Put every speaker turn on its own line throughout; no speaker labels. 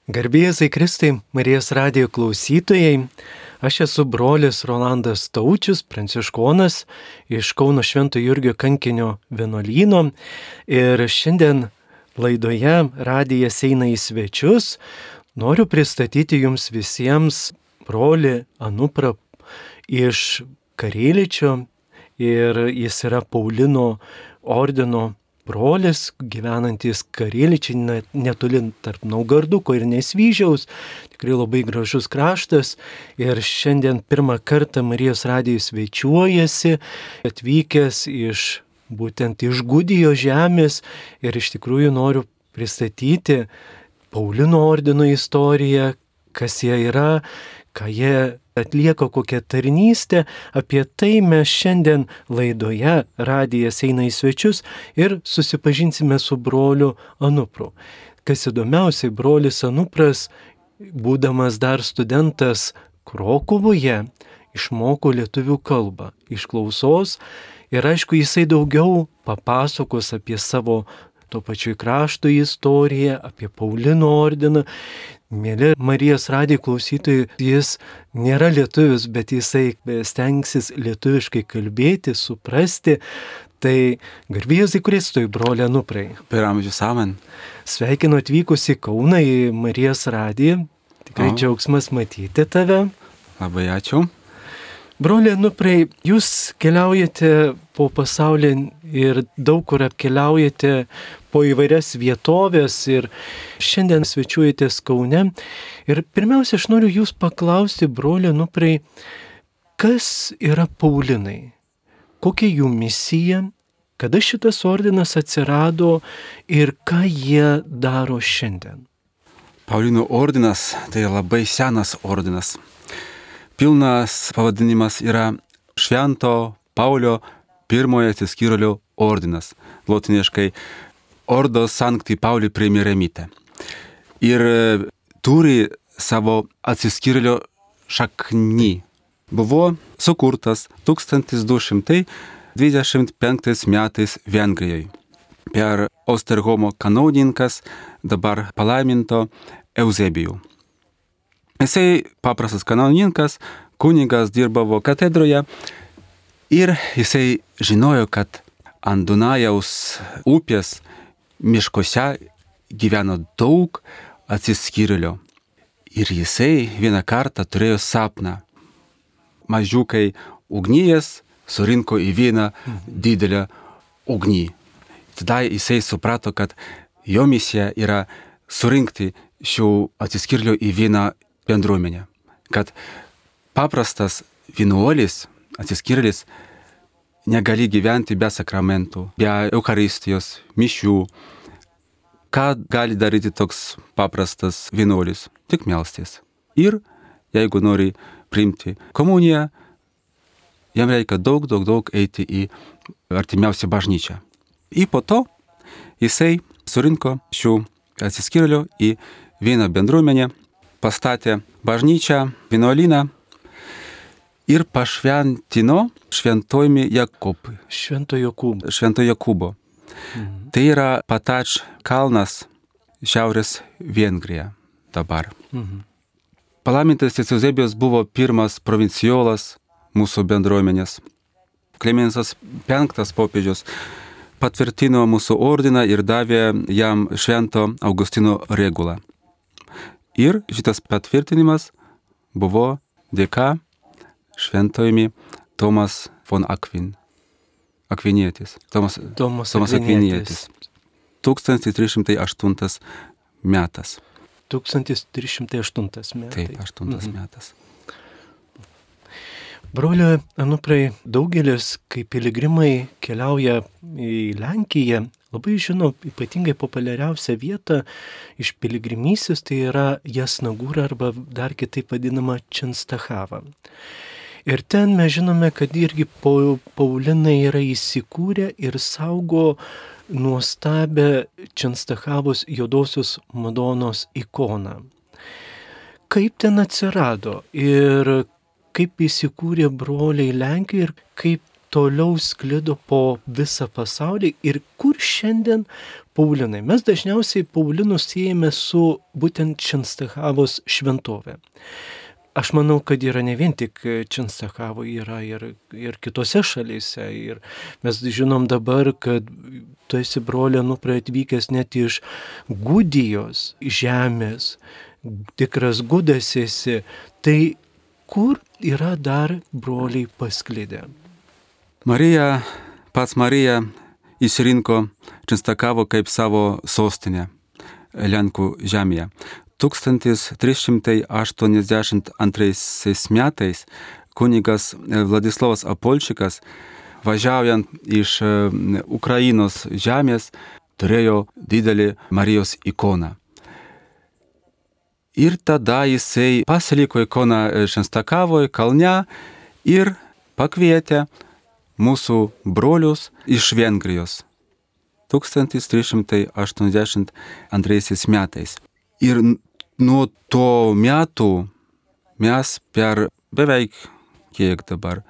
Garbėzai Kristai, Marijos radijo klausytojai, aš esu brolis Rolandas Taučius, pranciškonas iš Kauno Švento Jurgio kankinio vienuolyno ir šiandien laidoje radijas eina į svečius. Noriu pristatyti jums visiems brolį Anuprą iš Karėličio ir jis yra Paulino ordino brolis, gyvenantis Karėličiai netoli tarp Naugarduko ir Nesvyžiaus. Tikrai labai gražus kraštas. Ir šiandien pirmą kartą Marijos radijui svečiuojasi, atvykęs būtent iš Gudijo žemės. Ir iš tikrųjų noriu pristatyti Paulino ordino istoriją, kas jie yra, ką jie atlieka, kokią tarnystę. Apie tai mes šiandien laidoje radijas eina į svečius ir susipažinsime su broliu Anupru. Kas įdomiausiai, brolis Anupras, būdamas dar studentas Krokuvoje, išmoko lietuvių kalbą iš klausos ir aišku, jisai daugiau papasakos apie savo to pačiu krašto istoriją, apie Paulino ordiną. Mėly Marijos radijo klausytojai, jis nėra lietuvis, bet jisai stengsis lietuviškai kalbėti, suprasti. Tai garbėzai Kristui, broli Anuprai.
Per amžius amen.
Sveikinu atvykus į Kauną, į Marijos radiją. Tikrai džiaugsmas matyti tave.
Labai ačiū.
Broli Anuprai, jūs keliaujate po pasaulį ir daug kur apkeliaujate po įvairias vietovės ir šiandien svečiuojatės Kaune. Ir pirmiausia, aš noriu jūs paklausti, broli Anuprai, kas yra Paulinai? Kokia jų misija? Kada šitas ordinas atsirado ir ką jie daro šiandien?
Paulinų ordinas tai labai senas ordinas. Pilnas pavadinimas yra Švento Paulio pirmojo atsiskyrėlio ordinas. Lotiniškai Ordo Sancti Pauli Premieremite. Ir turi savo atsiskyrėlio šaknį. Buvo sukurtas 1225 metais Vengrijoje per Osterhomo kanauninkas, dabar palaiminto Eusebijų. Jisai paprastas kanauninkas, kunigas dirbavo katedroje ir jisai žinojo, kad ant Dunajaus upės miškuose gyveno daug atsiskyrėlių. Ir jisai vieną kartą turėjo sapną. Mažiukai ugnyjas surinko į vieną didelę ugnį. Tada jisai suprato, kad jo misija yra surinkti šių atsiskyrėlių į vieną bendruomenę. Kad paprastas vienuolis, atsiskyrėlis, negali gyventi be sakramentų, be Eucharistijos, mišių. Ką gali daryti toks paprastas vienuolis? Tik melstis. Ir jeigu nori priimti komuniją, jam reikia daug eiti į artimiausią bažnyčią. Ir po to jisai surinko šių atsiskyrėlių į vieną bendruomenę, pastatė bažnyčią, vienuolyną ir pašventino šventojimi Jakubui.
Švento Jokūbo.
Švento Jokūbo. Tai yra Patač kalnas šiaurės Vengrija dabar. Palaimintas Eusebijus buvo pirmas provinciolas mūsų bendruomenės. Klemensas V popiežius patvirtino mūsų ordiną ir davė jam Švento Augustino regulą. Ir šitas patvirtinimas buvo dėka šventojimi Tomas von Akvinietis. Tomas Akvinietis. 1308 metas.
1308 metai.
Taip, 8 metas.
Brolio Anuprai, daugelis, kai piligrimai keliauja į Lenkiją, labai žino ypatingai populiariausią vietą iš piligrimystės, tai yra Jasnagūra arba dar kitaip vadinama Čenstachava. Ir ten mes žinome, kad irgi Paulinai yra įsikūrę ir saugo nuostabę Čenstachavos juodosios Madonos ikoną. Kaip ten atsirado ir kaip įsikūrė broliai Lenkijoje ir kaip toliau sklido po visą pasaulį ir kur šiandien Paulinai. Mes dažniausiai Paulinus siejame su būtent Čenstachavos šventovė. Aš manau, kad yra ne vien tik Čenstachavo, yra ir kitose šalyse. Ir mes žinom dabar, kad tu esi, brolė, atvykęs net iš Gudijos žemės, tikras gudas esi. Tai kur yra dar broliai pasklidę?
Pats Marija išsirinko Čenstachavo kaip savo sostinę Lenkų žemėje. 1382 metais kunigas Vladislavas Apolčikas, važiaujant iš Ukrainos žemės, turėjo didelį Marijos ikoną. Ir tada jisai pasiliko ikoną Čenstachavoje kalne ir pakvietė mūsų brolius iš Vengrijos 1382 metais. Ir nuo to metų mes per beveik, kiek dabar,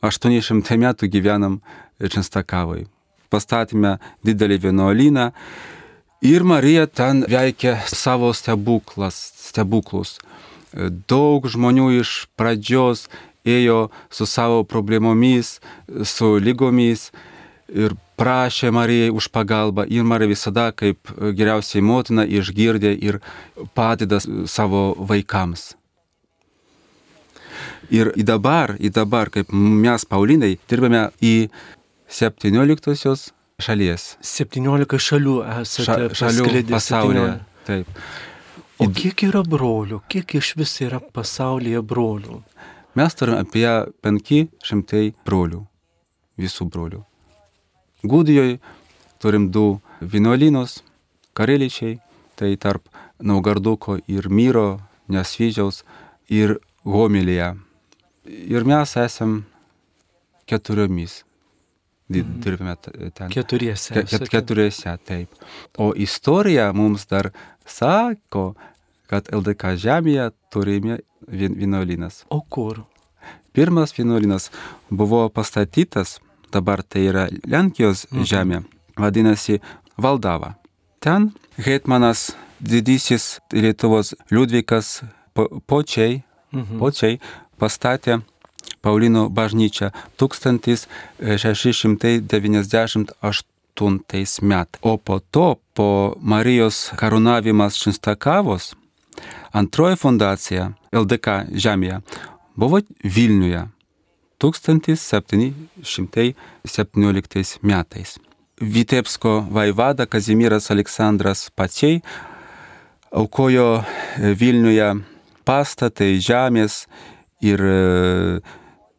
800 metų gyvenam Čenstachavoje. Pastatėme didelį vienuolyną ir Marija ten veikia savo stebuklus. Daug žmonių iš pradžios ėjo su savo problemomis, su lygomis ir prašė Marijai už pagalbą. Ir Marija visada kaip geriausiai motina išgirdė ir padeda savo vaikams. Ir dabar, kaip mes, Paulinai, dirbame į 17 šalies.
17 šalių esate
šalių pasaulyje. Taip.
O kiek yra brolių? Kiek iš vis yra pasaulyje brolių?
Mes turime apie 500 brolių, visų brolių. Gudijoje turim 2 vienuolynus, Kareličiai, tai tarp Naugarduko ir Myro, Nesvyžiaus ir Homilėje. Ir mes esam 4 dirbame ten. 4, taip. O istorija mums dar sako, kad LDK žemėje turime vienuolynas.
O kur?
Pirmas vienuolynas buvo pastatytas, dabar tai yra Lenkijos žemė, vadinasi Valdava. Ten hetmanas didysis Lietuvos Liudvikas Počiai pastatė Paulino bažnyčią 1698 metais. O po to, po Marijos karūnavimas Čenstachavos, antroji fundacija LDK žemėje buvo Vilniuje 1717 metais. Vitebsko vaivada Kazimieras Aleksandras Paciai aukojo Vilniuje pastatai žemės ir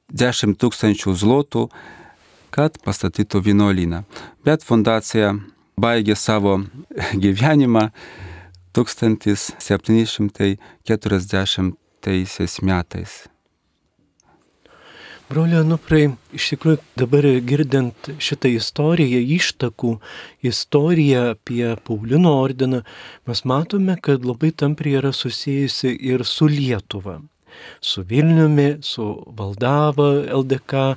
10 000 zlotų, kad pastatytų vienuolyną. Bet fundacija baigė savo gyvenimą 1740 metais.
Broliai Anuprai, iš tikrųjų dabar girdint šitą istoriją, ištakų istoriją apie Paulino ordiną, mes matome, kad labai tampriai yra susijusi ir su Lietuva, su Vilniumi, su Valdava, LDK.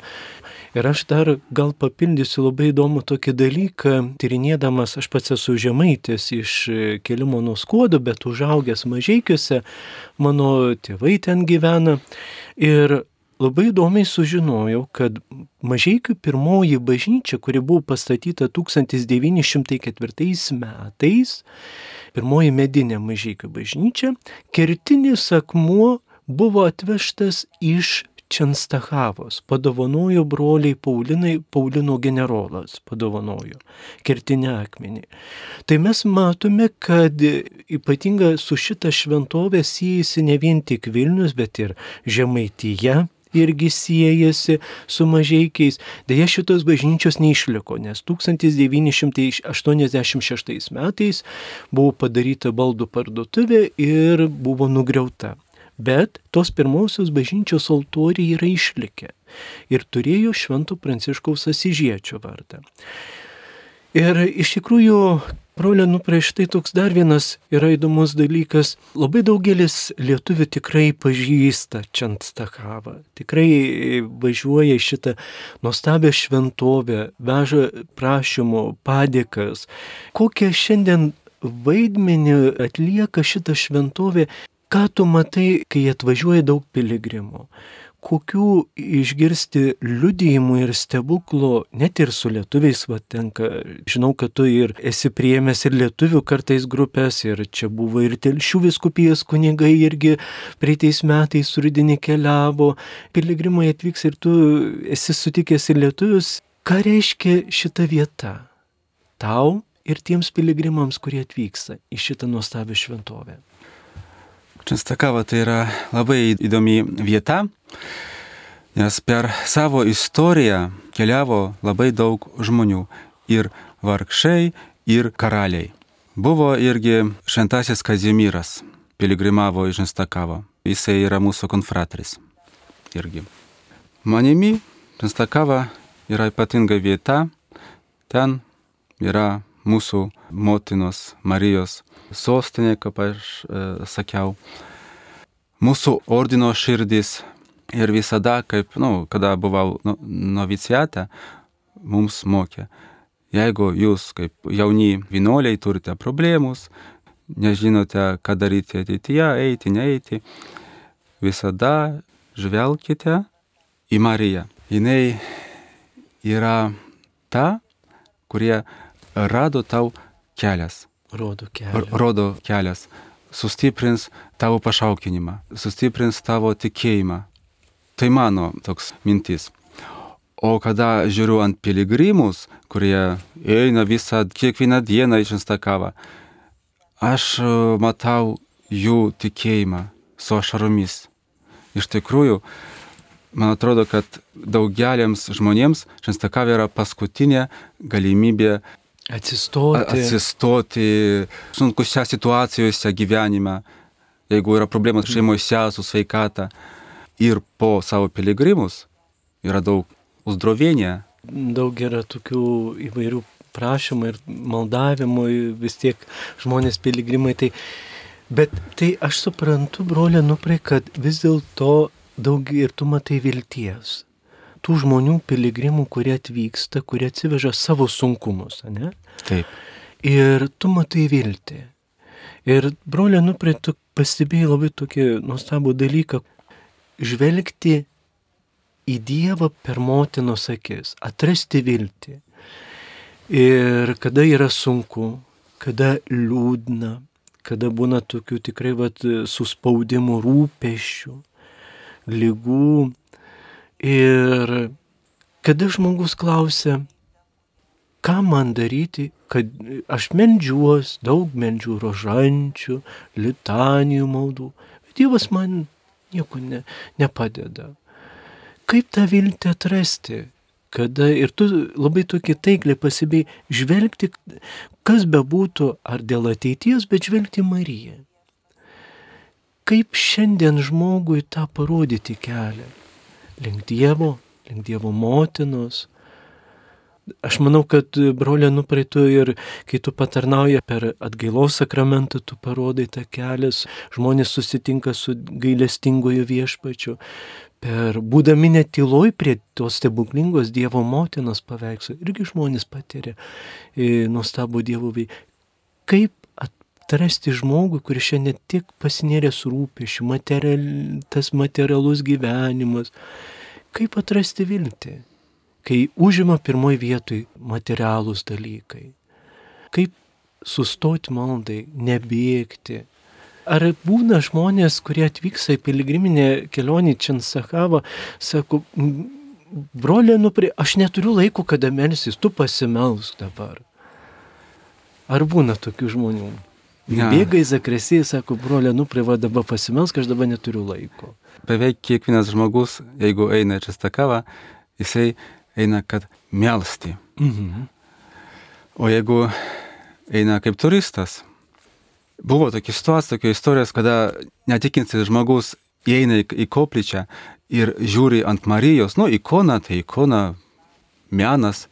Ir aš dar gal papildysiu labai įdomų tokį dalyką, tyrinėdamas, aš pats esu žemaitis iš Kelimo nuo Skuodo, bet užaugęs Mažeikiuose, mano tėvai ten gyvena. Ir labai įdomiai sužinojau, kad Mažeikių pirmoji bažnyčia, kuri buvo pastatyta 1904 metais, pirmoji medinė Mažeikių bažnyčia, kertinis akmuo buvo atvežtas iš Čenstachavos, padovanojo broliai Paulinai, Paulino generolas padovanojo kertinį akmenį. Tai mes matome, kad ypatinga su šita šventovė siejasi ne vien tik Vilnius, bet ir Žemaitija irgi siejasi su Mažeikiais. Deja, šitos bažnyčios neišliko, nes 1986 metais buvo padaryta baldų parduotuvė ir buvo nugriauta. Bet tos pirmosios bažnyčios altoriai yra išlikę ir turėjo Švento Pranciškaus Asyžiečio vardą. Ir iš tikrųjų, brolio Nuprai, štai toks dar vienas yra įdomus dalykas. Labai daugelis lietuvių tikrai pažįsta Čenstakavą. Tikrai važiuoja į šitą nuostabią šventovę, veža prašymų, padėkas. Kokią šiandien vaidmenį atlieka šitą šventovę? Ką tu matai, kai atvažiuoja daug piligrimų? Kokių išgirsti liudijimų ir stebuklų, net ir su lietuviais tenka. Žinau, kad tu ir esi priėmęs ir lietuvių kartais grupės, ir čia buvo ir Telšių vyskupijos kunigai irgi praeitais metais rudenį keliavo. Piligrimai atvyks ir tu esi sutikęs ir lietuvius. Ką reiškia šita vieta tau ir tiems piligrimams, kurie atvyksta į šitą nuostabią šventovę?
Čenstakava tai yra labai įdomi vieta, nes per savo istoriją keliavo labai daug žmonių, ir vargšai, ir karaliai. Buvo irgi šventasis Kazimieras, piligrimavo į Čenstakavą. Jisai yra mūsų konfratris irgi. Manimi, Čenstakava yra ypatinga vieta, ten yra mūsų motinos Marijos sostinė, kaip aš sakiau, mūsų ordino širdis. Ir visada, kada buvau noviciate, mums mokė, jeigu jūs kaip jauni vienuoliai turite problemus, nežinote, ką daryti ateityje, eiti, neeiti, visada žvelkite į Mariją. Jinai yra ta, kurie rado tau kelias. Rodo kelias. Sustiprins tavo pašaukinimą, sustiprins tavo tikėjimą. Tai mano toks mintis. O kada žiūriu ant piligrimus, kurie eina kiekvieną dieną į Čenstakavą, aš matau jų tikėjimą su ašaromis. Iš tikrųjų, man atrodo, kad daugeliams žmonėms Čenstakava yra paskutinė galimybė atsistoti sunkuose situacijose gyvenime, jeigu yra problemas šeimose su sveikata. Ir po savo piligrimus yra daug uzdrovienia.
Daug yra tokių įvairių prašymų ir maldavimų, vis tiek žmonės piligrimai. Bet tai aš suprantu, brolė Nuprai, kad vis dėlto daug ir tu matai vilties. Tų žmonių piligrimų, kurie atvyksta, kurie atsiveža savo sunkumus, ne?
Taip.
Ir tu matai viltį. Ir brolė Nuprai, tu pastebėjai labai tokį nuostabų dalyką, žvelgti į Dievą per motinos akis, atrasti viltį. Ir kada yra sunku, kada liūdna, kada būna tokių tikrai suspaudimų, rūpesčių, ligų. Ir kada žmogus klausia, ką man daryti, kad aš meldžiuos, daug meldžiu rožančių, litanijų maldų, bet Dievas man nieko nepadeda. Kaip tą viltį atrasti? Kada ir tu labai tokį taikliai pasibėjai žvelgti, kas bebūtų, ar dėl ateities, bet žvelgti Mariją. Kaip šiandien žmogui tą parodyti kelią? Link Dievo motinos. Aš manau, kad brolė Nuprai, tu ir kai tu patarnauji per atgailos sakramentą, tu parodai tą kelią, žmonės susitinka su gailestingojo Viešpačiu. Būdami net tyloj prie tos stebuklingos Dievo motinos paveikslo, irgi žmonės patiria nuostabų Dievo veiksmą. Kaip atrasti žmogų, kuris šiandien tik pasinėręs rūpesčių, tas materialus gyvenimas, kaip atrasti viltį, kai užima pirmoji vietoj materialūs dalykai, kaip sustoti maldai, nebėgti. Ar būna žmonės, kurie atvyksta į piligriminę kelionę į Čenstakavą, sako, brolė Nuprai, aš neturiu laiko, kada melsis, tu pasimelsk dabar. Ar būna tokių žmonių? Ja. Bėga į zakresiją, sako, brolė Nuprai, dabar pasimelsk, aš dabar neturiu laiko.
Beveik kiekvienas žmogus, jeigu eina į Čenstakavą, jisai eina, kad melsti.
Mhm.
O jeigu eina kaip turistas, buvo tokia situacija, tokia istorijos, kada netikintis žmogus įeina į koplyčią ir žiūri ant Marijos, ikona, tai ikona, menas,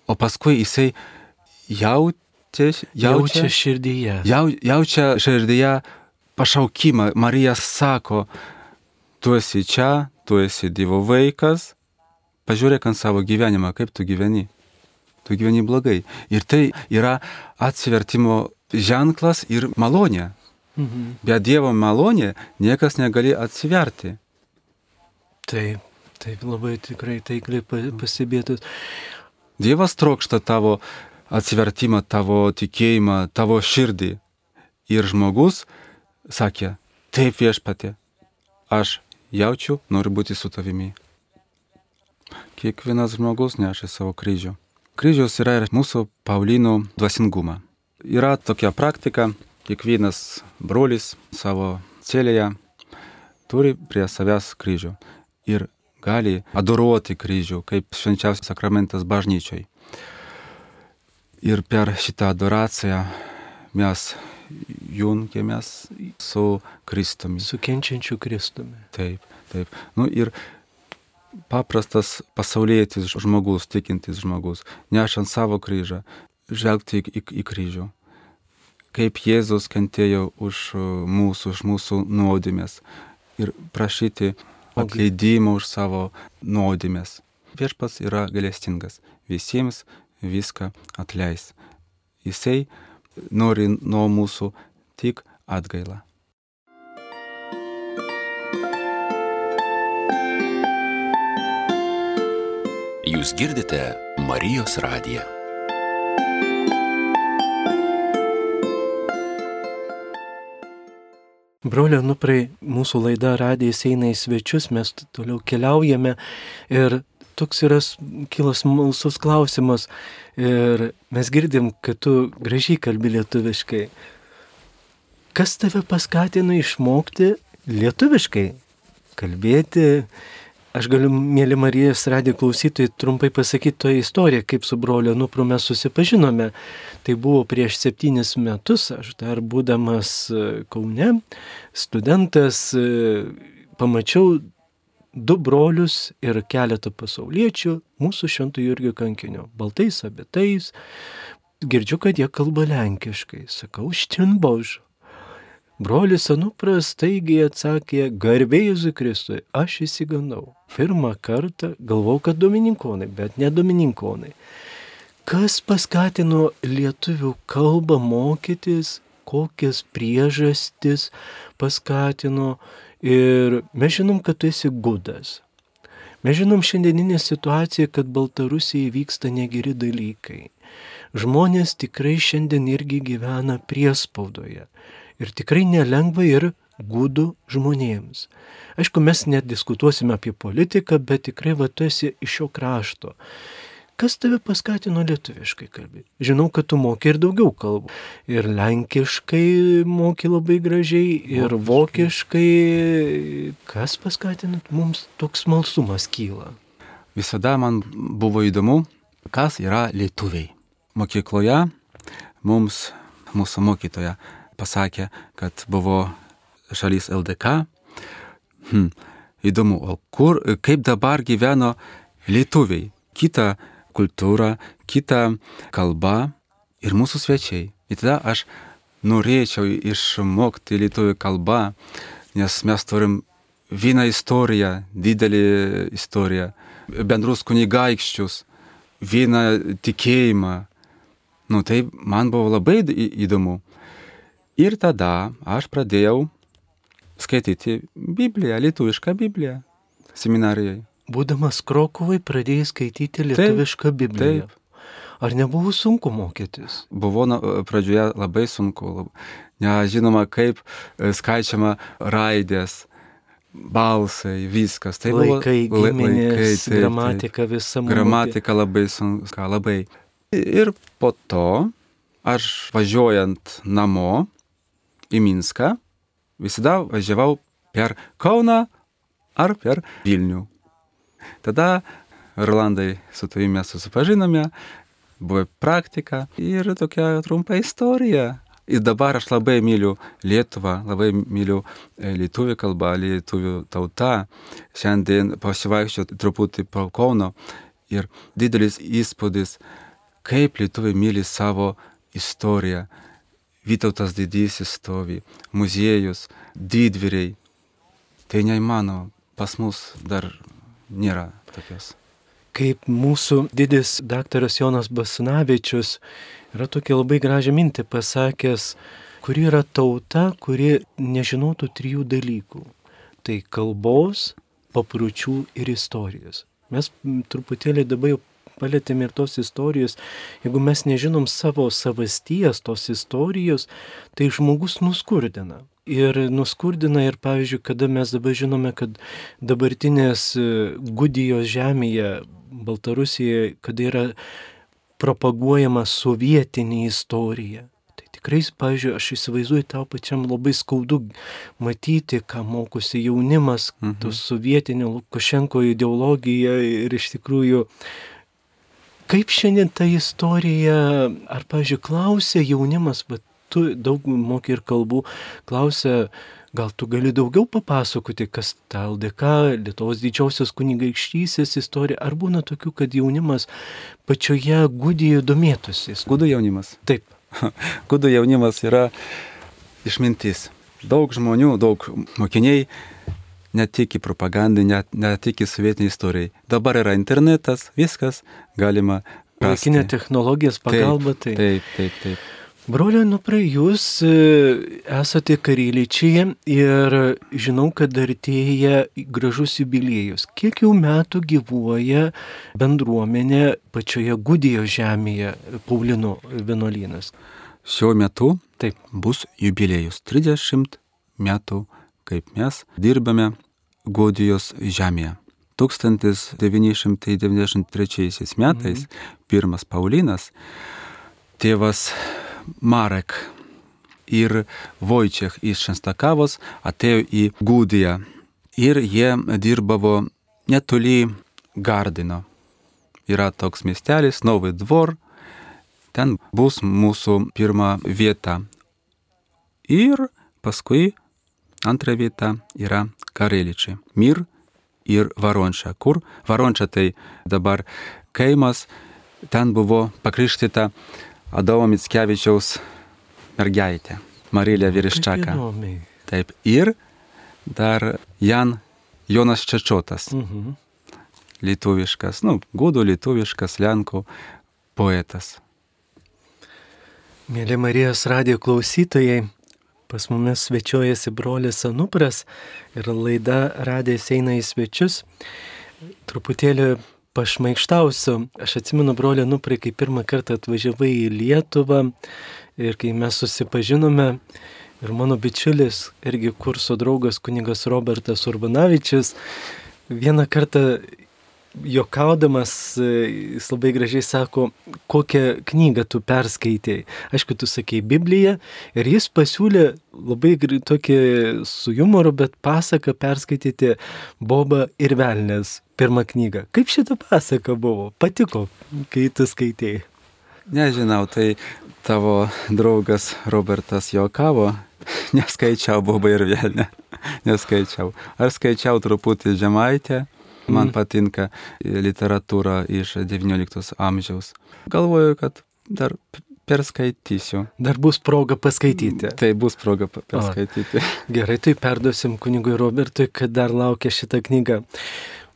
o paskui jisai
Jaučia širdyje.
Jaučia širdyje pašaukimą. Marija sako, tu esi čia, tu esi Dievo vaikas, pažiūrėk ant savo gyvenimą, kaip tu gyveni. Tu gyveni blogai. Ir tai yra atsivertimo ženklas ir malonė. Be Dievo malonė niekas negali atsiverti.
Taip, labai tikrai taikliai pastebėtas.
Dievas trokšta tavo atsivertimą, tavo tikėjimą, tavo širdį. Ir žmogus sakė, taip Viešpatie, aš jaučiu, noriu būti su tavimi. Kiekvienas žmogus neša savo kryžių. Kryžius yra ir mūsų Paulino dvasingumą. Yra tokia praktika, kiekvienas brolis savo celėje turi prie savęs kryžių ir gali adoruoti kryžių, kaip švenčiausias sakramentas bažnyčiai. Ir per šitą adoraciją mes jungiamės su Kristumi.
Su kenčiančiu Kristumi.
Taip. Ir paprastas pasaulietis žmogus, tikintis žmogus, nešant savo kryžą, žvelgti į kryžių. Kaip Jėzus kentėjo už mūsų nuodėmes ir prašyti atleidimo už savo nuodėmes. Viešpats yra gailestingas, visiems viską atleis. Jisai nori nuo mūsų tik atgailą.
Jūs girdite Marijos radiją.
Brolio Nuprai, mūsų laida Radijas eina į svečius, mes toliau keliaujame ir toks yra kilas smalsus klausimas ir mes girdim, kad tu gražiai kalbi lietuviškai. Kas tave paskatino išmokti lietuviškai kalbėti? Aš galiu, mėly Marijos radijo klausytojai, trumpai pasakyti toje istoriją, kaip su broliu Nupru mes susipažinome. Tai buvo prieš 7 metus, aš dar būdamas Kaune, studentas, pamačiau 2 brolius ir keletą pasauliečių mūsų Švento Jurgio kankinio, baltais abitais. Girdžiu, kad jie kalba lenkiškai. Sakau, štin Bož. Brolis Anupras staigiai atsakė, garbė Jėzui Kristui, aš įsigandau. Pirmą kartą galvau, kad domininkonai, bet ne domininkonai. Kas paskatino lietuvių kalbą mokytis, kokias priežastis paskatino ir mes žinom, kad tu esi gudas. Mes žinom šiandieninę situaciją, kad Baltarusijai vyksta negeri dalykai. Žmonės tikrai šiandien irgi gyvena priespaudoje. Ir tikrai nelengva ir gudų žmonėms. Aišku, mes nediskutuosime apie politiką, bet tikrai tu esi iš šio krašto. Kas tave paskatino lietuviškai kalbėti? Žinau, kad tu moki ir daugiau kalbų. Ir lenkiškai moki labai gražiai, ir vokiškai. Kas paskatino? Mums toks smalsumas kyla.
Visada man buvo įdomu, kas yra lietuviai. Mokykloje mums mūsų mokytoja pasakė, kad buvo šalis LDK. Įdomu, o kaip dabar gyveno lietuviai? Kita kultūra, kita kalba ir mūsų svečiai. Ir tada aš norėčiau išmokti lietuvių kalbą, nes mes turim vieną istoriją, didelį istoriją, bendrus kunigaikščius, vieną tikėjimą. Tai man buvo labai įdomu. Ir tada aš pradėjau skaityti Bibliją, lietuvišką Bibliją seminarijai.
Būdamas Krokuvai pradėjai skaityti lietuvišką Bibliją. Taip. Ar nebuvo sunku mokytis?
Buvo pradžioje labai sunku. Nežinoma, kaip skaičiama raidės, balsai, viskas. Tai
laikai, giminės, gramatika visa.
Gramatika labai sunku, labai. Ir po to aš važiuojant namo į Minską, visada važiavau per Kauną ar per Vilnių. Tada, Rolandai, su tavimi mes susipažinome, buvo praktika ir tokia trumpa istorija. Ir dabar aš labai myliu Lietuvą, labai myliu lietuvių kalbą, lietuvių tautą. Šiandien pasivaikščiau truputį po Kauno ir didelis įspūdis, kaip lietuviai myli savo istoriją. Vytautas didysis stovi, muziejus, didvyriai. Tai neįmanoma, pas mus dar nėra tokios.
Kaip mūsų didis daktaras Jonas Basanavičius yra tokia labai gražią mintį pasakęs, kuri yra tauta, kuri nežinotų 3 dalykų. Tai kalbos, papročių ir istorijos. Mes truputėlį dabar jau palėtėme ir tos istorijos. Jeigu mes nežinom savo savasties, tos istorijos, tai žmogus nuskurdina. Ir nuskurdina ir, pavyzdžiui, kada mes dabar žinome, kad dabartinės Gudijos žemėje, Baltarusijoje, kada yra propaguojama sovietinė istorija. Tai tikrai, pavyzdžiui, aš įsivaizduoju, tau pačiam labai skaudu matyti, ką mokosi jaunimas, tos sovietinio Lukašenko ideologija ir iš tikrųjų, kaip šiandien ta istorija, ar, pavyzdžiui, klausia jaunimas, bet tu daug moki ir kalbų, klausia, gal tu gali daugiau papasakoti, kas ta LDK, Lietuvos didžiosios kunigaikštystės istorija, ar būna tokių, kad jaunimas pačioje Gudijoje domėtųsi?
Gudų jaunimas?
Taip.
Gudų jaunimas yra išmintis. Daug žmonių, daug mokiniai netiki propagandai, netiki sovietiniai istorijai. Dabar yra internetas, viskas galima rasti.
Laikinė technologijos pagalba.
Taip.
Broliai Nuprai, jūs esate Karelyčiai ir žinau, kad artėja gražus jubiliejus. Kiek jau metų gyvuoja bendruomenė pačioje Gudijos žemėje, Paulino vienuolynas?
Šiuo metu
taip
bus jubiliejus 30 metų, kaip mes dirbame Gudijos žemėje. 1993 metais pirmas Paulinas, tėvas Marek ir Vojčiech iš Šenstakavos atėjo į Gudiją ir jie dirbavo netoli Gardino. Yra toks miestelis, Novy Dvor, ten bus mūsų pirma vieta. Ir paskui antra vieta yra Karelyčiai, Mir ir Varonča. Kur? Varonča tai dabar kaimas, ten buvo pakrikštyta Adomo Mickevičiaus mergaitė, Marilė Vyriščaka. Taip, ir dar Jonas Čečotas, lietuviškas, gudų lietuviškas lenkų poetas.
Mėly Marijos radijo klausytojai, pas mumis svečiuojasi brolis Anupras ir laida Radijas eina į svečius. Truputėlį pašmaikštausiu. Aš atsimenu, broli Anuprai, kai pirmą kartą atvažiavai į Lietuvą ir kai mes susipažinome ir mano bičiulis, irgi kurso draugas kunigas Robertas Urbanavičius, vieną kartą juokaudamas, jis labai gražiai sako, kokią knygą tu perskaitėjai. Aišku, tu sakei Bibliją ir jis pasiūlė labai tokį su jumoru, bet pasaką perskaityti Boba ir Velnias. Pirmą knygą. Kaip šita pasaka buvo? Patiko, kai tu skaitėjai?
Nežinau, tai tavo draugas Robertas juokavo. Neskaičiau Bobą ir Velnią. Neskaičiau. Ar skaičiau truputį Žemaitę. Man patinka literatūra iš XIX amžiaus. Galvoju, kad dar perskaitysiu.
Dar bus proga paskaityti.
Tai bus proga paskaityti.
Gerai, tai perduosim kunigui Robertui, kad dar laukia šitą knygą.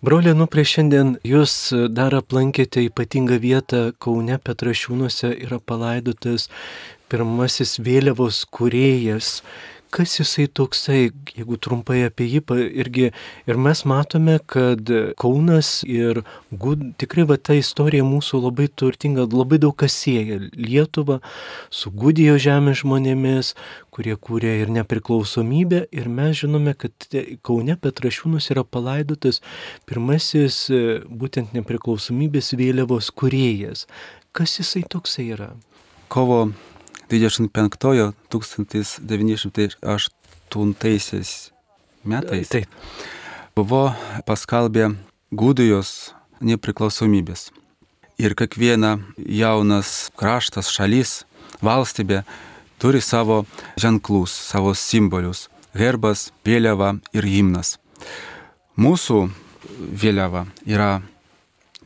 Broli Anuprai, šiandien jūs dar aplankėte ypatingą vietą Kaune Petrašiūnuose, yra palaidotas pirmasis vėliavos kūrėjas. Kas jisai toksai, jeigu trumpai apie jį irgi, ir mes matome, kad Kaunas ir tikrai ta istorija mūsų labai turtinga, labai daug kas sieja Lietuvą su Gudijos žemės žmonėmis, kurie kūrė ir nepriklausomybę, ir mes žinome, kad Kaune Petrašiūnus yra palaidotas pirmasis būtent nepriklausomybės vėliavos kūrėjas. Kas jisai toksai yra?
Kovo 25 1908 metais buvo paskelbė Gudijos nepriklausomybės. Ir kiekviena jaunas kraštas, šalis, valstybė turi savo ženklus, savo simbolius, herbas, vėliava ir himnas. Mūsų vėliava yra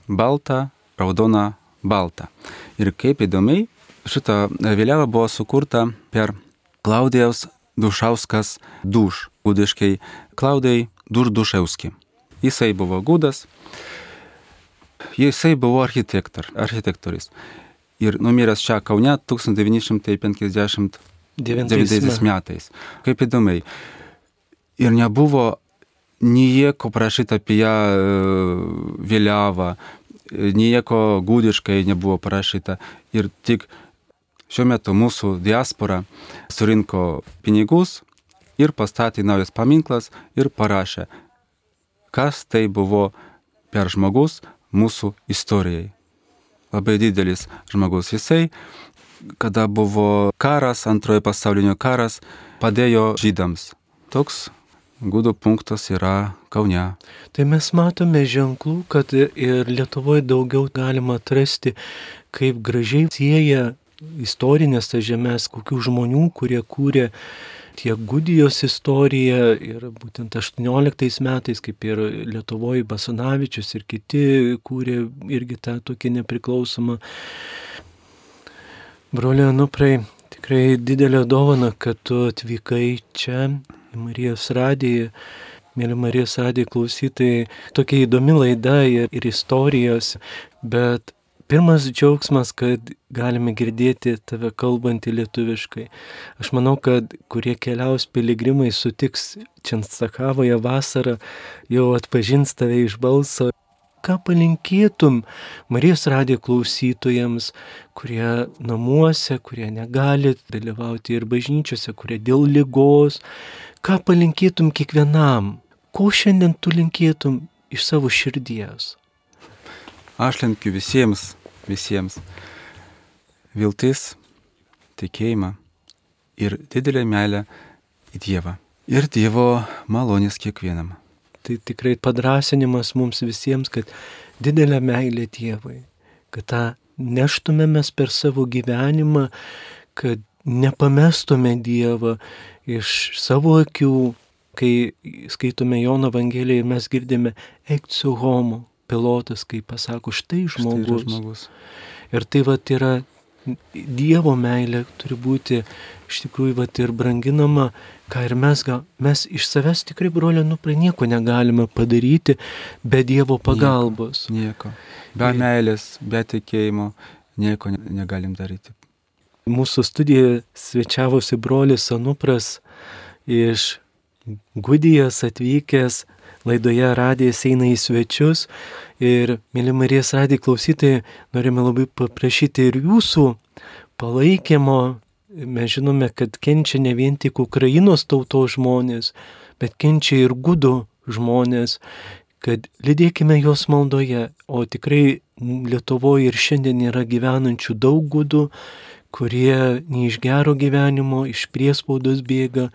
balta, raudona, balta. Ir kaip įdomiai, šita vėliava buvo sukurta per Klaudijaus Dušauskas Duš, gudiškai Klaudijai Dušauski. Jisai buvo gudas, jisai buvo architektorius. Ir numiręs čia Kaune 1959 metais. Kaip įdomiai. Ir nebuvo nieko parašyta apie ją vėliavą, nieko gudiškai nebuvo parašyta. Ir tik šiuo metu mūsų diaspora surinko pinigus ir pastatė naujas paminklas ir parašė, kas tai buvo per žmogus mūsų istorijai. Labai didelis žmogus. Jisai, kada buvo karas, antrojo pasaulinio karas, padėjo žydams. Toks gudų punktas yra Kaune.
Tai mes matome ženklų, kad ir Lietuvoje daugiau galima atrasti, kaip gražiai sieja istorinės tas žemės, kokių žmonių, kurie kūrė tiek Gudijos istoriją ir būtent 18 metais, kaip ir Lietuvoje Basanavičius ir kiti kūrė irgi tą tokį nepriklausomą. Broliai Anuprai, tikrai didelė dovana, kad tu atvykai čia į Marijos radiją. Mėly Marijos radijo klausytojai, tokia įdomi laida ir istorijos, bet pirmas džiaugsmas, kad galime girdėti tave kalbantį lietuviškai. Aš manau, kad kurie keliaus piligrimai sutiks Čenstakavoje vasarą, jau atpažins tave iš balso. Ką palinkėtum Marijos radijo klausytojams, kurie namuose, kurie negali dalyvauti ir bažnyčiose, kurie dėl ligos, ką palinkėtum kiekvienam? Ko šiandien tu linkėtum iš savo širdies?
Aš linkiu visiems viltis, tikėjimą ir didelę meilę į Dievą. Ir Dievo malonės kiekvienam.
Tai tikrai padrasinimas mums visiems, kad didelę meilę Dievui, kad tą neštumėmės per savo gyvenimą, kad nepamestume Dievą iš savo akių, kai skaitome Jono Evangeliją ir mes girdime eikciu homo. Pilotas, kai pasako, štai žmogus. Ir tai yra Dievo meilė turi būti iš tikrųjų ir branginama, ką ir mes iš savęs tikrai, broliai Anuprai, nieko negalime padaryti be Dievo pagalbos.
Nieko. Be meilės, be tikėjimo nieko negalim daryti.
Mūsų studijoje svečiavosi brolis Anupras iš Gudijos atvykęs. Laidoje radijas eina į svečius ir, mėly Marijos radijo klausytojai, norime labai paprašyti ir jūsų palaikymo. Mes žinome, kad kenčia ne vien tik Ukrainos tautos žmonės, bet kenčia ir gudų žmonės, kad lydėkime juos maldoje, o tikrai Lietuvoje ir šiandien yra gyvenančių daug gudų, kurie ne iš gero gyvenimo, iš priespaudos bėga.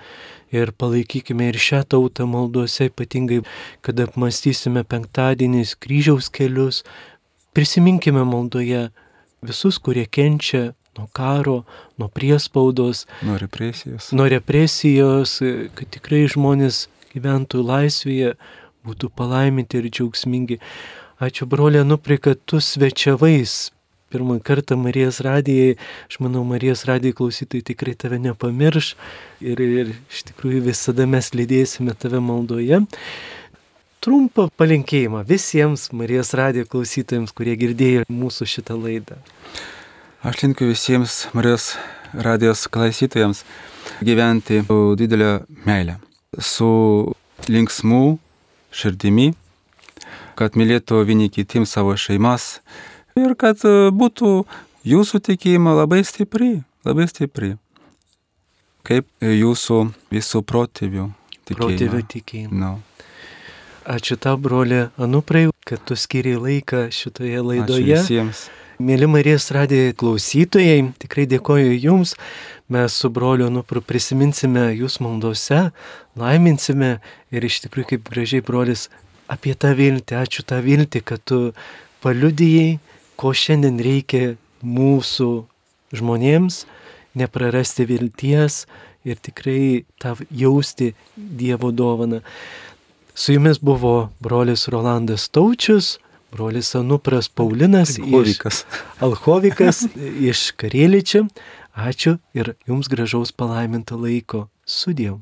Ir palaikykime ir šią tautą maldose, ypatingai, kad apmąstysime penktadieniais kryžiaus kelius. Prisiminkime maldoje visus, kurie kenčia nuo karo, nuo priespaudos,
nuo represijos,
kad tikrai žmonės gyventų laisvėje, būtų palaiminti ir džiaugsmingi. Ačiū, broliai Anuprai, kad tu svečiavais pirmą kartą Marijos radijai. Aš manau, Marijos radijo klausytojai tikrai tave nepamirš ir iš tikrųjų visada mes lydėsime tave maldoje. Trumpą palinkėjimą visiems Marijos radijo klausytojams, kurie girdėjo mūsų šitą laidą.
Aš linkiu visiems Marijos radijos klausytojams gyventi su didelė meilė, su linksmu širdimi, kad mylėtų vieni kitiems savo šeimas, ir kad būtų jūsų tikėjimo labai stipri, kaip jūsų visų protėvių
tikėjimo.
No.
Ačiū tau, broli Anuprai, kad tu skiri laiką šitoje laidoje.
Ačiū visiems.
Mėly Marijos radijo klausytojai, tikrai dėkoju jums. Mes su broliu Anupru prisiminsime jūs maldose, laiminsime ir iš tikrųjų kaip gražiai brolis apie tą viltį. Ačiū tą viltį, kad tu paliudijai, ko šiandien reikia mūsų žmonėms, neprarasti vilties ir tikrai tą jausti Dievo dovaną. Su jumis buvo brolis Rolandas Taučius, brolis Anupras Paulinas Alchovikas iš Karėličio. Ačiū ir jums gražaus palaiminto laiko. Sudiev.